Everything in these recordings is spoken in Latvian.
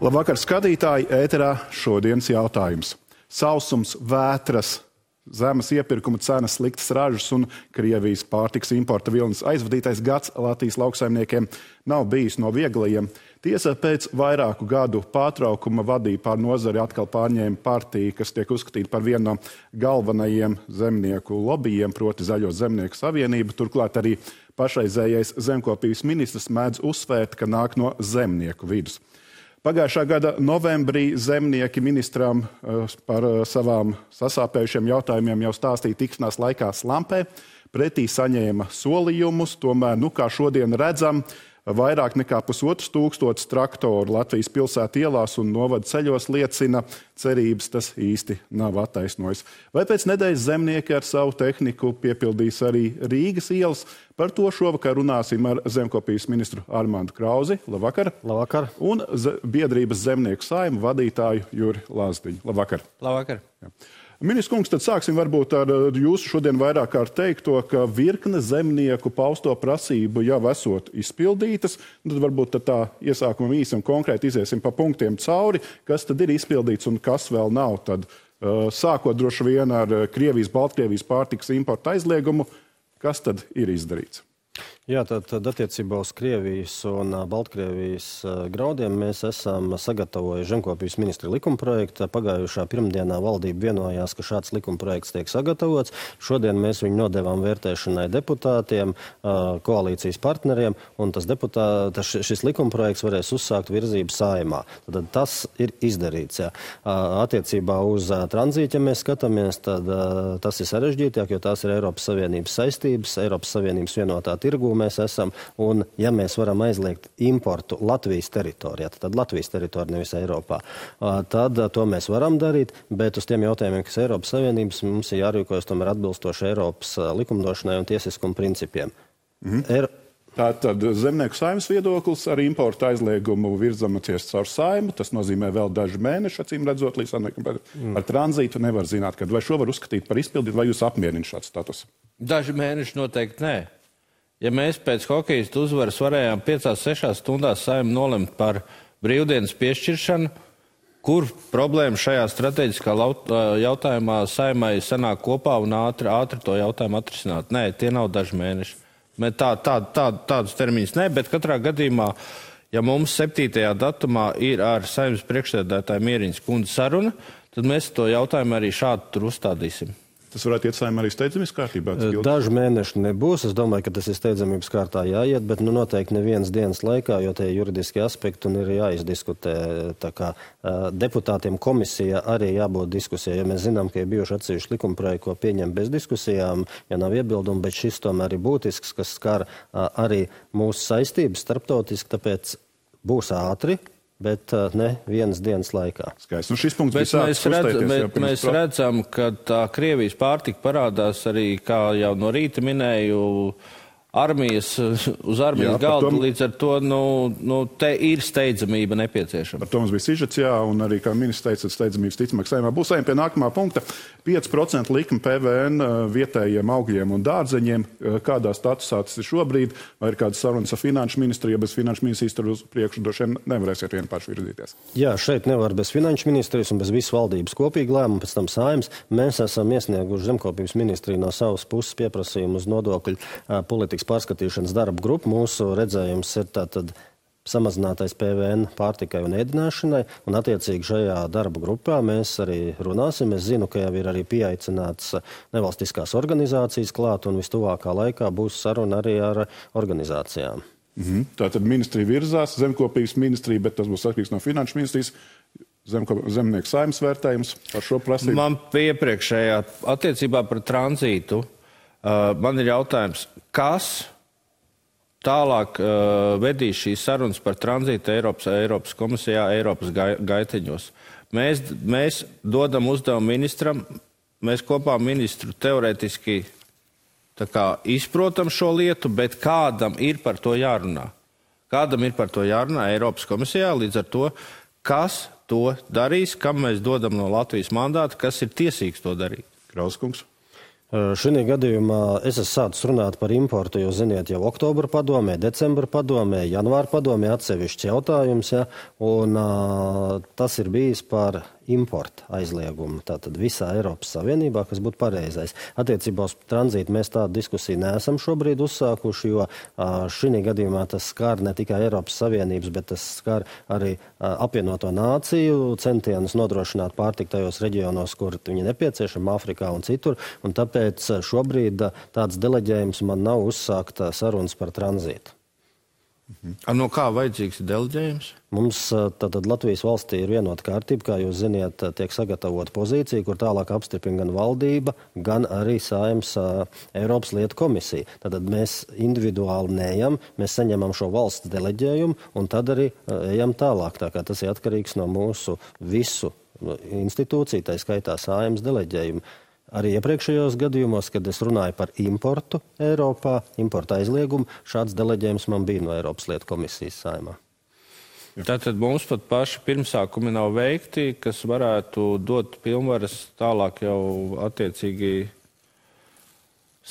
Labvakar, skatītāji, ēterā šodienas jautājums. Sausums, vētras, zemes iepirkuma cenas, sliktas ražas un Krievijas pārtikas importa vilnis aizvadītais gads Latvijas lauksaimniekiem nav bijis no vieglajiem. Tiesa pēc vairāku gadu pārtraukuma vadīja pār nozari atkal pārņēma partija, kas tiek uzskatīta par vienu no galvenajiem zemnieku lobbyiem, proti Zaļo zemnieku savienību. Turklāt arī pašreizējais zemkopības ministrs mēdz uzsvērt, ka nāk no zemnieku vidus. Pagājušā gada novembrī zemnieki ministram par savām sasāpējušiem jautājumiem jau stāstīja tikšanās laikā Slampē. Pretī saņēma solījumus, tomēr, kā šodien redzam, vairāk nekā 1500 traktoru Latvijas pilsētu ielās un novada ceļos liecina, cerības tas īsti nav attaisnojis. Vai pēc nedēļas zemnieki ar savu tehniku piepildīs arī Rīgas ielas? Par to šovakar runāsim ar zemkopības ministru Armandu Krauzi. Labvakar. Labvakar. Un biedrības zemnieku saima vadītāju Juri Lazdiņu. Labvakar. Labvakar. Jā. Ministrs kungs, tad sāksim varbūt ar jūsu šodien vairāk kārt teikto, ka virkne zemnieku pausto prasību jau esot izpildītas. Tad varbūt tā iesākumam īsi un konkrēti iziesim pa punktiem cauri, kas tad ir izpildīts un kas vēl nav. Tad sākot droši vien ar Krievijas, Baltkrievijas pārtikas importa aizliegumu, kas tad ir izdarīts? Jā, tad attiecībā uz Krievijas un Baltkrievijas graudiem mēs esam sagatavojuši zemkopības ministra likumprojektu. Pagājušā pirmdienā valdība vienojās, ka šāds likumprojekts tiek sagatavots. Šodien mēs viņu nodevām vērtēšanai deputātiem, koalīcijas partneriem, un šis likumprojekts varēs uzsākt virzību saimā. Tad tas ir izdarīts. Jā. Attiecībā uz tranzītu, ja mēs skatāmies, tad tas ir sarežģītāk, jo tās ir Eiropas Savienības saistības, Eiropas Savienības vienotā tirgū mēs esam, un ja mēs varam aizliegt importu Latvijas teritorijā, tad Latvijas teritorija nevis Eiropā, tad to mēs varam darīt, bet uz tiem jautājumiem, kas Eiropas Savienības, mums ir jārīkojas tomēr atbilstoši Eiropas likumdošanai un tiesiskuma principiem. Tātad zemnieku saimnes viedoklis ar importu aizliegumu virzamies caur saimu. Tas nozīmē vēl daži mēneši, acīm redzot, līdz ar tranzītu nevar zināt, kad vai šo var uzskatīt par izpildīt, vai jūs apmierina šāds status? Daži mēneši noteikti nē. Ja mēs pēc hokejistu uzvaras varējām 5-6 stundās saimu nolemt par brīvdienas piešķiršanu, kur problēma šajā strateģiskā jautājumā saimai sanāk kopā un ātri to jautājumu atrisināt? Nē, tie nav daži mēneši. Tādus termiņus nē, bet katrā gadījumā, ja mums 7. datumā ir ar saimnes priekšsēdētāju Mieriņas kundzi saruna, tad mēs to jautājumu arī šādi tur uzstādīsim. Tas varētu iet saimā arī steidzamības kārtībā? Daži mēneši nebūs. Es domāju, ka tas ir steidzamības kārtā jāiet, bet noteikti nevienas dienas laikā, jo tie juridiski aspekti un ir jāizdiskutē. Tā kā deputātiem komisija arī jābūt diskusijai, jo mēs zinām, ka ir bijuši atsevišķi likumprojekti, ko pieņem bez diskusijām, ja nav iebildumu, bet šis tomēr ir būtisks, kas skar arī mūsu saistības starptautiski, tāpēc būs ātri, bet ne vienas dienas laikā. Skaisti. Šis punkts bija sāks uzstēties. Mēs redzam, ka tā Krievijas pārtika parādās arī, kā jau no rīta minēju, uz armijas galda, līdz ar to te ir steidzamība nepieciešama. Par to mums bija sižets, un arī, kā ministrs teica, steidzamības ticamāk saimā. Būs ejam pie nākamā punkta. 5% likuma PVN vietējiem augļiem un dārzeņiem. Kādā statusā tas ir šobrīd? Vai ir kādas sarunas ar finanšu ministriju? Ja bez finanšu ministrijas tur uz priekšu droši vien nevarēsiet vien paši virzīties. Jā, šeit nevar bez finanšu ministrijas un bez visas valdības kopīgi lēmumu, pēc tam saimas. Mēs esam iesnieguši zemkopības ministriju no savas puses pieprasījumu uz nodokļu politikas pārskatīšanas darba grupu. Mūsu redzējums ir tātad samazinātais PVN pārtikai un ēdināšanai, un attiecīgi šajā darba grupā mēs arī runāsim. Es zinu, ka jau ir arī pieaicināts nevalstiskās organizācijas klāt, un vistuvākā laikā būs saruna arī ar organizācijām. Tātad ministrija virzās, zemkopības ministrija, bet tas būs atkarīgs no finanšu ministrijas. Zemnieku saimnes vērtējums par šo prasību. Man iepriekšējā attiecībā par tranzītu man ir jautājums, kas tālāk vedīs šīs sarunas par tranzītu Eiropas komisijā, Eiropas gaiteņos. Mēs dodam uzdevumu ministram, mēs kopā ministru teorētiski izprotam šo lietu, bet kādam ir par to jārunā? Kādam ir par to jārunā Eiropas komisijā, līdz ar to, kas to darīs, kam mēs dodam no Latvijas mandāta, kas ir tiesīgs to darīt? Krauskungs. Šī gadījumā es esmu sācis runāt par importu, jo, ziniet, jau oktobra padomē, decembra padomē, janvāra padomē atsevišķs jautājums, ja, un tas ir bijis par importa aizliegumu. Tātad visā Eiropas Savienībā, kas būtu pareizais. Attiecībā uz tranzītu mēs tādu diskusiju neesam šobrīd uzsākuši, jo šī gadījumā tas skar ne tikai Eiropas Savienības, bet tas skar arī apvienoto nāciju centienus nodrošināt pārtiku tajos reģionos, kur viņi nepieciešami, Āfrikā un citur, un tāpēc šobrīd tāds deleģējums man nav uzsākt sarunas par tranzītu. No kā vajadzīgs deleģējums? Mums tātad Latvijas valstī ir vienota kārtība, kā jūs ziniet, tiek sagatavota pozīcija, kur tālāk apstiprina gan valdība, gan arī Saeimas Eiropas lietu komisija. Tātad mēs individuāli neejam, mēs saņemam šo valsts deleģējumu un tad arī ejam tālāk. Tā kā tas ir atkarīgs no mūsu visu institūciju, tā skaitā Saeimas deleģējumu. Arī iepriekšējos gadījumos, kad es runāju par importu Eiropā, importa aizliegumu, šāds deleģējums man bija no Eiropas lietu komisijas Saeimā. Tātad mums pat paši pirmsākumi nav veikti, kas varētu dot pilnvaras tālāk jau attiecīgi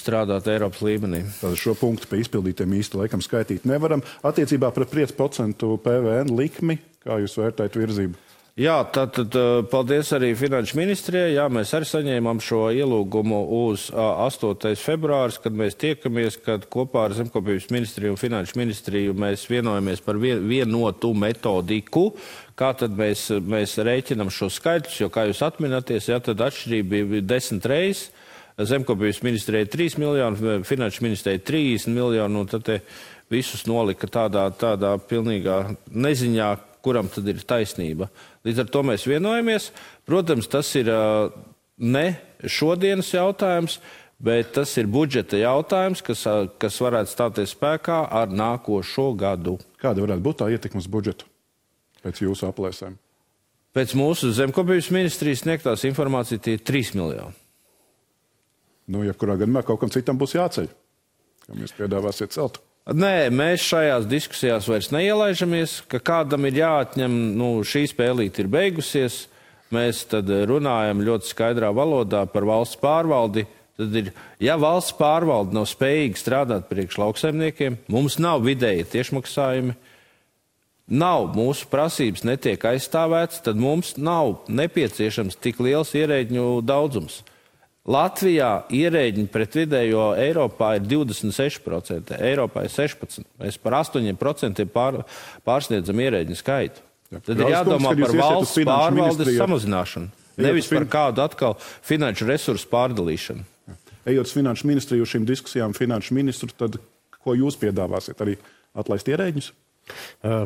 strādāt Eiropas līmenī. Tātad šo punktu pie izpildītiem īsti laikam skaitīt nevaram. Attiecībā par 5% PVN likmi, kā jūs vērtējat virzību? Jā, tātad paldies arī Finanšu ministrijai. Jā, mēs arī saņēmām šo ielūgumu uz 8. februāris, kad mēs tiekamies, kad kopā ar Zemkopības ministriju un Finanšu ministriju mēs vienojamies par vienotu metodiku, kā tad mēs rēķinam šo skaitļus, jo, kā jūs atminaties, jā, tad atšķirība bija 10 reizes. Zemkopības ministrijai 3 miljoni, Finanšu ministrijai 30 miljoni, un tad visus nolika tādā pilnīgā neziņā, kuram tad ir taisnība. Līdz ar to mēs vienojamies. Protams, tas ir ne šodienas jautājums, bet tas ir budžeta jautājums, kas varētu stāties spēkā ar nākošo gadu. Kāda varētu būt tā ietekme uz budžetu pēc jūsu aplēsēm? Pēc mūsu Zemkopības ministrijas sniegtās informācija tie ir 3 miljoni. Jebkurā gadījumā kaut kam citam būs jāceļ, kam jūs piedāvāsiet celtu. Nē, mēs šajās diskusijās vairs neielaižamies, ka kādam ir jāatņem, šī spēlīte ir beigusies, mēs tad runājam ļoti skaidrā valodā par valsts pārvaldi. Tad ja valsts pārvalde nav spējīga strādāt priekš lauksaimniekiem, mums nav vidēji tiešmaksājumi, mūsu prasības netiek aizstāvētas, tad mums nav nepieciešams tik liels ierēģņu daudzums. Latvijā ierēģiņi pret vidējo Eiropā ir 26%, Eiropā ir 16%. Mēs par 8% pārsniedzam ierēģiņu skaitu. Tad ir jādomā par valsts pārvaldes samazināšanu, nevis par kādu atkal finanšu resursu pārdalīšanu. Ejot uz Finanšu ministriju šīm diskusijām, finanšu ministru, tad ko jūs piedāvāsiet? Arī atlaist ierēģņus?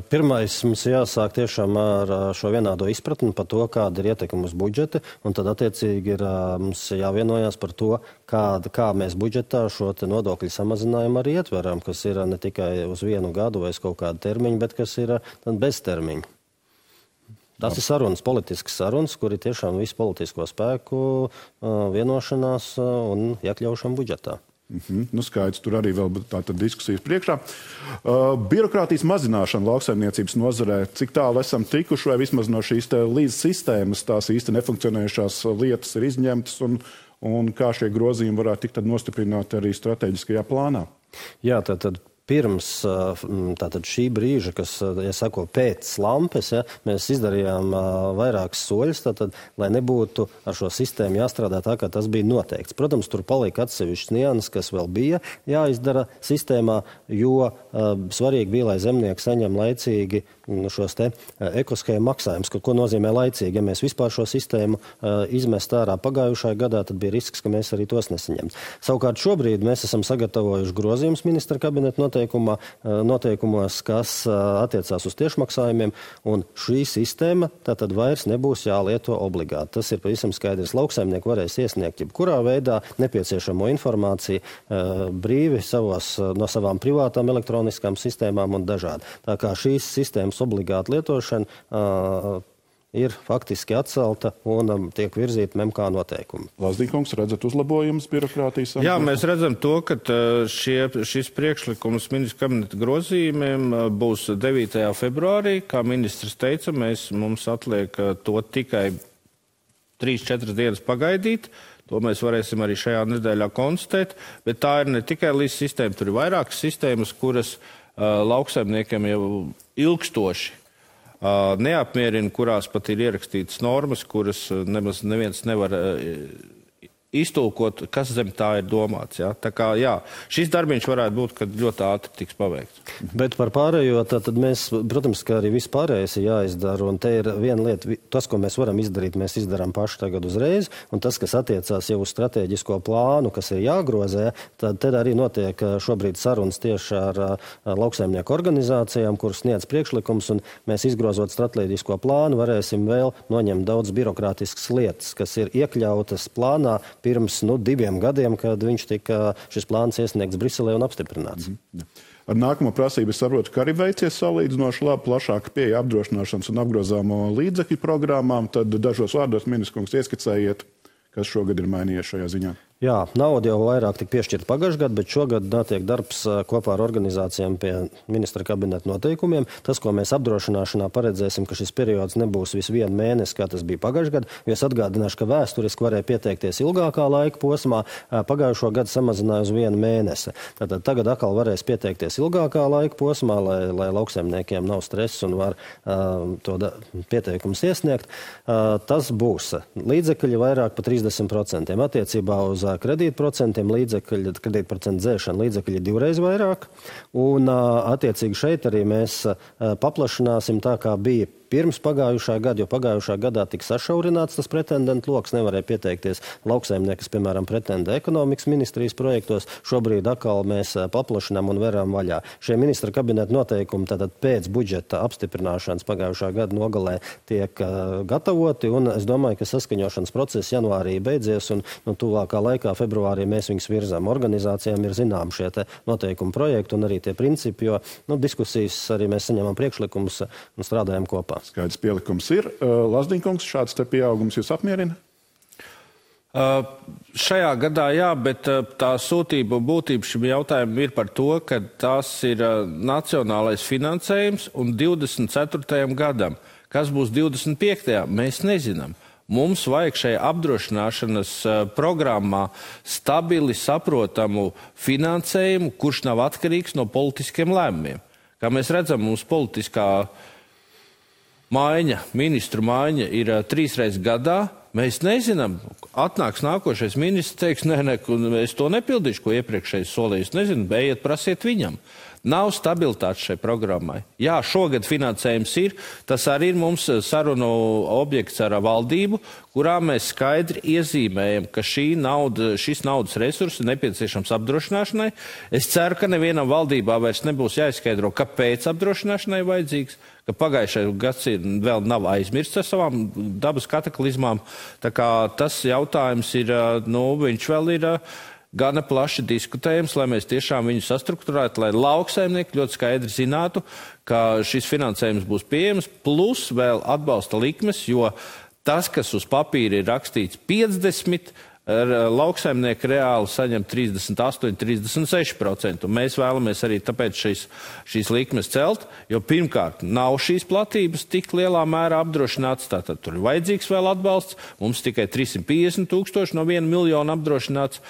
Pirmais mums jāsāk tiešām ar šo vienādo izpratni par to, kāda ir ietekme uz budžeti, un tad attiecīgi ir mums jāvienojās par to, kā mēs budžetā šo nodokļu samazinājumu arī ietveram, kas ir ne tikai uz vienu gadu vai uz kaut kādu termiņu, bet kas ir bez termiņu. Tas ir sarunas, politiskas sarunas, kur ir tiešām visu politisko spēku vienošanās un iekļaušana budžetā. Skaidrs, tur arī vēl tātad diskusijas priekšā. Birokrātijas mazināšana lauksaimniecības nozarē, cik tālu esam tikuši, vai vismaz no šīs līdz sistēmas tās īsti nefunkcionējušās lietas ir izņemtas, un kā šie grozījumi varētu tikt nostiprināti arī strateģiskajā plānā? Jā, tātad pirms šī brīža, kas, sako, pēc lampes, mēs izdarījām vairākas soļus, lai nebūtu ar šo sistēmu jāstrādā tā, kā tas bija noteikts. Protams, tur palika atsevišķs nianses, kas vēl bija jāizdara sistēmā, jo svarīgi bija, lai zemnieki saņem laicīgi šos ekoshēmu maksājumus. Ko nozīmē laicīgi? Ja mēs vispār šo sistēmu izmest ārā pagājušajā gadā, tad bija risks, ka mēs arī tos nesaņemt. Savukārt šobrīd mēs esam sagatavojuši grozījumus ministra kabineta noteikumos, kas attiecās uz tiešmaksājumiem, un šī sistēma tātad vairs nebūs jālieto obligāti. Tas ir pavisam skaidrs. Lauksaimnieki varēs iesniegt jebkurā veidā nepieciešamo informāciju brīvi no savām privātām elektroniskām sistēmām un dažādi. Tā kā šīs sistēmas obligāta lietošana ir faktiski atcelta un tiek virzīta MK noteikumi. Lazdīkungs, redzat uzlabojumus birokrātijas? Jā, mēs redzam to, ka šis priekšlikums ministra kabineta grozījumiem būs 9. februārī. Kā ministrs teica, mums atliek to tikai 3-4 dienas pagaidīt. To mēs varēsim arī šajā nedēļā konstatēt, bet tā ir ne tikai līdz sistēma, tur ir vairākas sistēmas, kuras lauksaimniekiem jau ilgstoši neapmierina, kurās pat ir ierakstītas normas, kuras nemaz neviens nevar iztulkot, kas zem tā ir domāts. Ja? Tā kā, jā, šis darbiņš varētu būt, kad ļoti ātri tiks paveikts. Bet par pārējo, tad mēs, protams, ka arī viss pārējais ir jāizdara, un te ir viena lieta, tas, ko mēs varam izdarīt, mēs izdarām paši tagad uzreiz, un tas, kas attiecās jau uz strateģisko plānu, kas ir jāgrozē, tad arī notiek šobrīd sarunas tieši ar lauksaimnieku organizācijām, kuras sniedz priekšlikums, un mēs izgrozot strateģisko plānu varēsim vēl noņemt daudz birokrātiskas lietas, kas ir iekļautas plānā pirms 2 gadiem, kad šis plāns iesniegts Briselē un apstiprināts. Ar nākamo prasību es saprotu, ka arī veicies salīdzinoši labi plašāka pieeja apdrošināšanas un apgrozāmo līdzekļu programmām. Tad dažos vārdos, ministrs kungs, ieskicējiet, kas šogad ir mainījies šajā ziņā. Jā, nauda jau vairāk tika piešķirta pagājušajā gadā, bet šogad notiek darbs kopā ar organizācijām pie ministra kabineta noteikumiem. Tas, ko mēs apdrošināšanā paredzēsim, ka šis periods nebūs visu 1 mēnesi, kā tas bija pagājušajā gadā, jo es atgādināšu, ka vēsturiski varēja pieteikties ilgākā laika posmā, pagājušo gadu samazināja uz 1 mēnesi. Tātad tagad atkal varēs pieteikties ilgākā laika posmā, lai lauksaimniekiem nav stress un var pieteikumus iesniegt. Tas būs līdzekļi vairāk par 30%. Attiecībā uz kredītprocentiem kredītprocentu dzēšana līdzekļi 2 reizes vairāk, un attiecīgi šeit arī mēs paplašināsim tā, kā bija pirms pagājušā gada, jo pagājušā gadā tika sašaurināts tas pretendentu loks, nevarēja pieteikties lauksaimnieki, kas, piemēram, pretendē ekonomikas ministrijas projektos. Šobrīd atkal mēs paplašinām un veram vaļā. Šie ministra kabineta noteikumi tātad pēc budžeta apstiprināšanas pagājušā gada nogalē tiek gatavoti, un es domāju, ka saskaņošanas process janvārī beidzies, un tuvākā laikā februārī mēs viņus virzām. Organizācijām ir zinām šie te noteikumu projekti un arī tie principi, jo diskusijas arī mēs saņemam priekšlikumus un strādājam kopā. Skaidrs pielikums ir. Lazdiņkungs, šāds te pieaugums jūs apmierina? Šajā gadā jā, bet tā sūtība un būtība šim jautājumam ir par to, ka tas ir nacionālais finansējums un 24. gadam. Kas būs 25. mēs nezinām. Mums vajag šajā apdrošināšanas programmā stabili saprotamu finansējumu, kurš nav atkarīgs no politiskiem lēmumiem. Kā mēs redzam, mums politiskā ministru maiņa ir 3 reizes gadā. Mēs nezinām, atnāks nākošais ministrs, teiks, nē, es to nepildīšu, ko iepriekšējais solījis. Nezinu, ejiet, prasiet viņam. Nav stabilitātes šai programmai. Jā, šogad finansējums ir, tas arī ir mums sarunu objekts ar valdību, kurā mēs skaidri iezīmējam, ka šis naudas resurss ir nepieciešams apdrošināšanai. Es ceru, ka nevienam valdībā vairs nebūs jāizskaidro, kāpēc apdrošināšanai vajadzīgs, ka pagājušais gads vēl nav aizmirsts ar savām dabas kataklizmām. Tā kā tas jautājums ir, viņš vēl ir gana plaši diskutējams, lai mēs tiešām viņu sastrukturētu, lai lauksaimnieki ļoti skaidri zinātu, ka šis finansējums būs pieejams, plus vēl atbalsta likmes, jo tas, kas uz papīra ir rakstīts 50%, lauksaimnieki reāli saņem 38, 36%. Mēs vēlamies arī tāpēc šīs likmes celt, jo pirmkārt nav šīs platības tik lielā mērā apdrošināts, tātad tur ir vajadzīgs vēl atbalsts, mums tikai 350 000 no 1 miljona apdrošināts.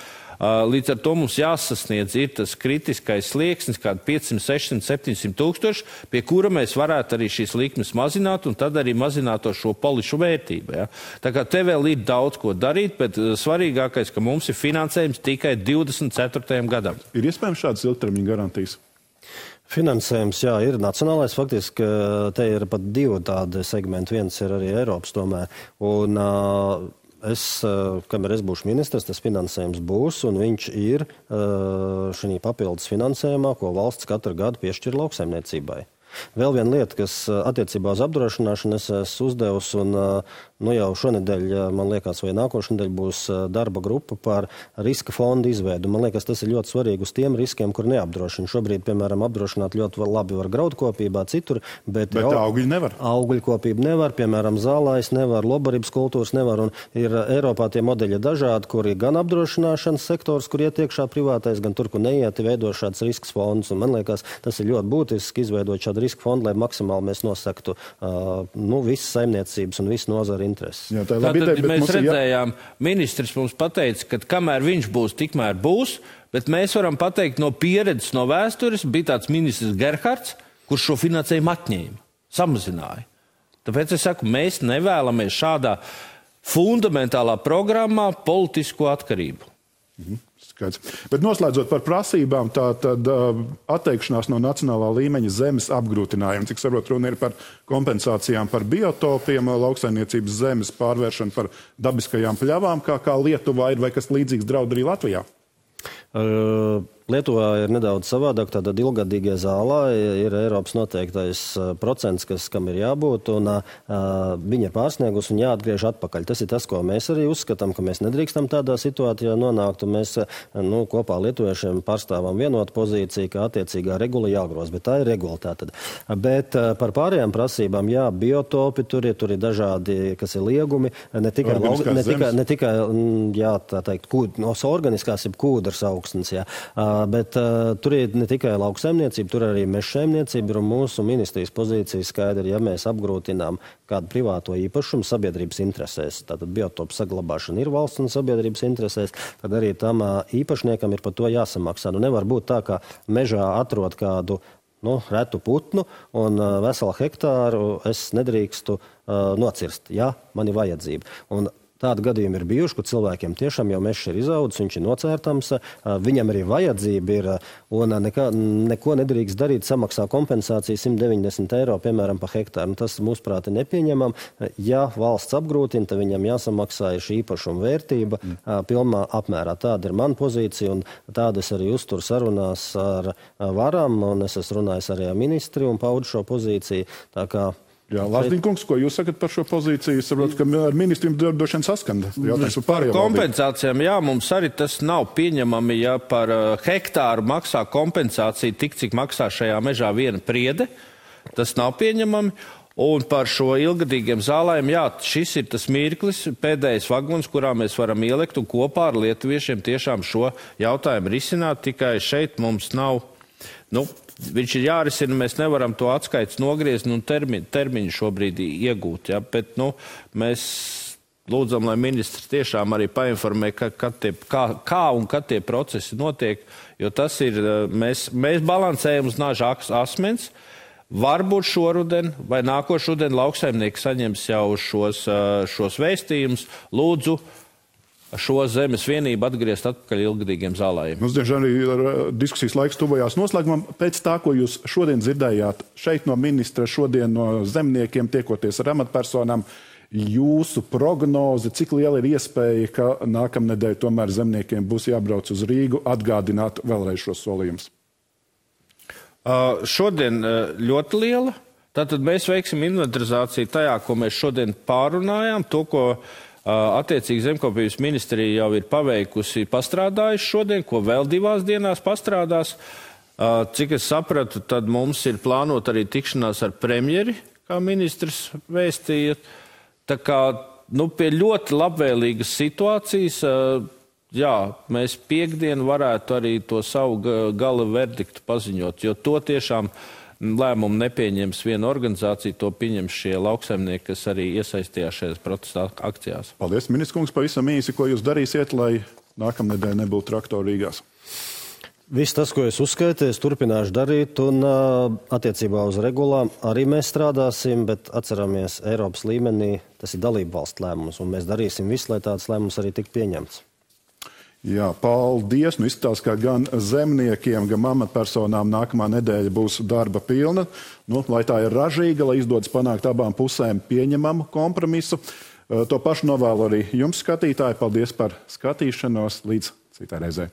Līdz ar to mums jāsasniedz ir tas kritiskais slieksnis, kādi 500, 600, 700 000, pie kura mēs varētu arī šīs likmes mazināt un tad arī mazināt šo polišu vērtību. Ja? Tā kā te vēl ir daudz ko darīt, bet svarīgākais, ka mums ir finansējums tikai 24. gadam. Ir iespējams šādas ilgtermiņa garantijas? Finansējums, jā, ir nacionālais. Faktiski te ir pat 2 tādi segmenti. Viens ir arī Eiropas tomēr. Un kamēr es būšu ministrs, tas finansējums būs, un viņš ir šī papildus finansējumā, ko valsts katru gadu piešķir lauksaimniecībai. Vēl viena lieta, kas attiecībā uz apdrošināšanu es esmu uzdevusi, un jau šonedēļ, man liekas, vai nākošu nedēļu būs darba grupa par riska fondu izveidu. Man liekas, tas ir ļoti svarīgi uz tiem riskiem, kur neapdrošina. Šobrīd, piemēram, apdrošināt ļoti labi var graudkopībā, citur, bet augļi nevar. Augļkopība nevar, piemēram, zālājs nevar, lobarības kultūras nevar, un ir Eiropā tie modeļi dažādi, kur ir gan apdrošināšanas sektors, kur iet iekšā privātais, gan tur, kur neiet, veido šāds risks fonds. Un man liekas, tas ir ļoti būtiski izveidot šādu riska fondu, lai maksimāli mēs nosaktu visas saimniecības un visu nozaru intereses. Jā, Tātad mēs redzējām, ministrs mums pateica, ka kamēr viņš būs, tikmēr būs, bet mēs varam pateikt no pieredzes, no vēstures, bija tāds ministrs Gerhards, kurš šo finansējumu atņēma, samazināja. Tāpēc es saku, mēs nevēlamies šādā fundamentālā programmā politisko atkarību. Skaidrs. Bet noslēdzot par prasībām, tad atteikšanās no nacionālā līmeņa zemes apgrūtinājuma, cik saprotu, runa ir par kompensācijām par biotopiem, lauksaimniecības zemes pārvēršanu par dabiskajām pļavām, kā Lietuvā ir, vai kas līdzīgs draud arī Latvijā? Lietuvā ir nedaudz savādāk, tātad ilgadīgie zālā ir Eiropas noteiktais procents, kam ir jābūt, un viņa ir pārsniegus un jāatgriež atpakaļ. Tas ir tas, ko mēs arī uzskatām, ka mēs nedrīkstam tādā situācijā nonākt, un mēs kopā lietuviešiem pārstāvam vienotu pozīciju, ka attiecīgā regula jāgroz, bet tā ir regula tātad. Bet par pārējām prasībām, jā, biotopi, tur ir dažādi, kas ir liegumi, ne tikai jā, tā teikt, organiskās ir kūdras augstnes, jā. Bet tur ir ne tikai lauksaimniecība, tur arī mežsaimniecība, un mūsu ministrijas pozīcija skaidra, ja mēs apgrūtinām kādu privāto īpašumu sabiedrības interesēs, tātad biotopu saglabāšana ir valsts un sabiedrības interesēs, tad arī tam īpašniekam ir par to jāsamaksā. Nevar būt tā, ka mežā atrod kādu retu putnu un veselu hektāru es nedrīkstu nocirst. Jā, man ir vajadzība. Un tādi gadījumi ir bijuši, kur cilvēkiem tiešām jau mežs ir izaudzis, viņš ir nocērtams, viņam arī vajadzība ir, un neko nedrīkst darīt, samaksā kompensāciju 190 eiro, piemēram, pa hektāru. Tas, mūsuprāt, ir nepieņemam. Ja valsts apgrūtina, tad viņam jāsamaksā šī īpašuma vērtība pilnā apmērā. Tāda ir mana pozīcija, un tāda es arī uzturu sarunās ar varam, un es esmu runājis arī ar ministri un paudu šo pozīciju. Tā kā Jā, Lazdiņkungs, ko jūs sakat par šo pozīciju? Es saprotu, ka ar ministriem droši vien saskanda. Par kompensācijām, jā, mums arī tas nav pieņemami, ja par hektāru maksā kompensāciju tik, cik maksā šajā mežā viena priede. Tas nav pieņemami. Un par šo ilgadīgiem zālēm, jā, šis ir tas mirklis, pēdējais vagons, kurā mēs varam ielikt un kopā ar lietuviešiem tiešām šo jautājumu risināt. Tikai šeit mums nav, viņš ir jārisina, mēs nevaram to atskaits nogriezt un termiņu šobrīd iegūt. Ja? Bet mēs lūdzam, lai ministrs tiešām arī painformē, kā un kad tie procesi notiek, jo tas ir, mēs balansējam uz naža asmens. Varbūt šoruden vai nākošruden lauksaimnieki saņems jau šos vēstījumus. Lūdzu, šo zemes vienību atgriezt atpakaļ ilgadīgiem zālājiem. Mums, diemžēl, arī diskusijas laiks tuvojās noslēgumam. Pēc tā, ko jūs šodien dzirdējāt šeit no ministra, šodien no zemniekiem, tiekoties ar amatpersonām, jūsu prognoze, cik liela ir iespēja, ka nākamnedēļ tomēr zemniekiem būs jābrauc uz Rīgu, atgādināt vēlreiz šos solījumus? Šodien ļoti liela. Tātad mēs veiksim inventarizāciju tajā, ko mēs šodien pārunājām, to, ko attiecīgi Zemkopības ministrija jau ir paveikusi, pastrādājuši šodien, ko vēl 2 dienās pastrādās. Cik es sapratu, tad mums ir plānot arī tikšanās ar premjeri, kā ministrs vēstīja. Tā kā, pie ļoti labvēlīgas situācijas, jā, mēs piekdien varētu arī to savu gala verdiktu paziņot, jo to tiešām lēmumu nepieņems viena organizācija, to pieņems šie lauksaimnieki, kas arī iesaistījās šajās protesta akcijās. Paldies, ministrs kungs, pavisam īsi, ko jūs darīsiet, lai nākamnedēļ nebūtu traktoru Rīgās? Viss tas, ko es uzskaitīju, es turpināšu darīt, un attiecībā uz regulām arī mēs strādāsim, bet atceramies, Eiropas līmenī tas ir dalību valstu lēmums, un mēs darīsim visu, lai tāds lēmums arī tik pieņemts. Jā, paldies. Izskatās, ka gan zemniekiem, gan amatpersonām nākamā nedēļa būs darba pilna. Lai tā ir ražīga, lai izdodas panākt abām pusēm pieņemamu kompromisu. To pašu novēlu arī jums, skatītāji. Paldies par skatīšanos. Līdz citai reizei.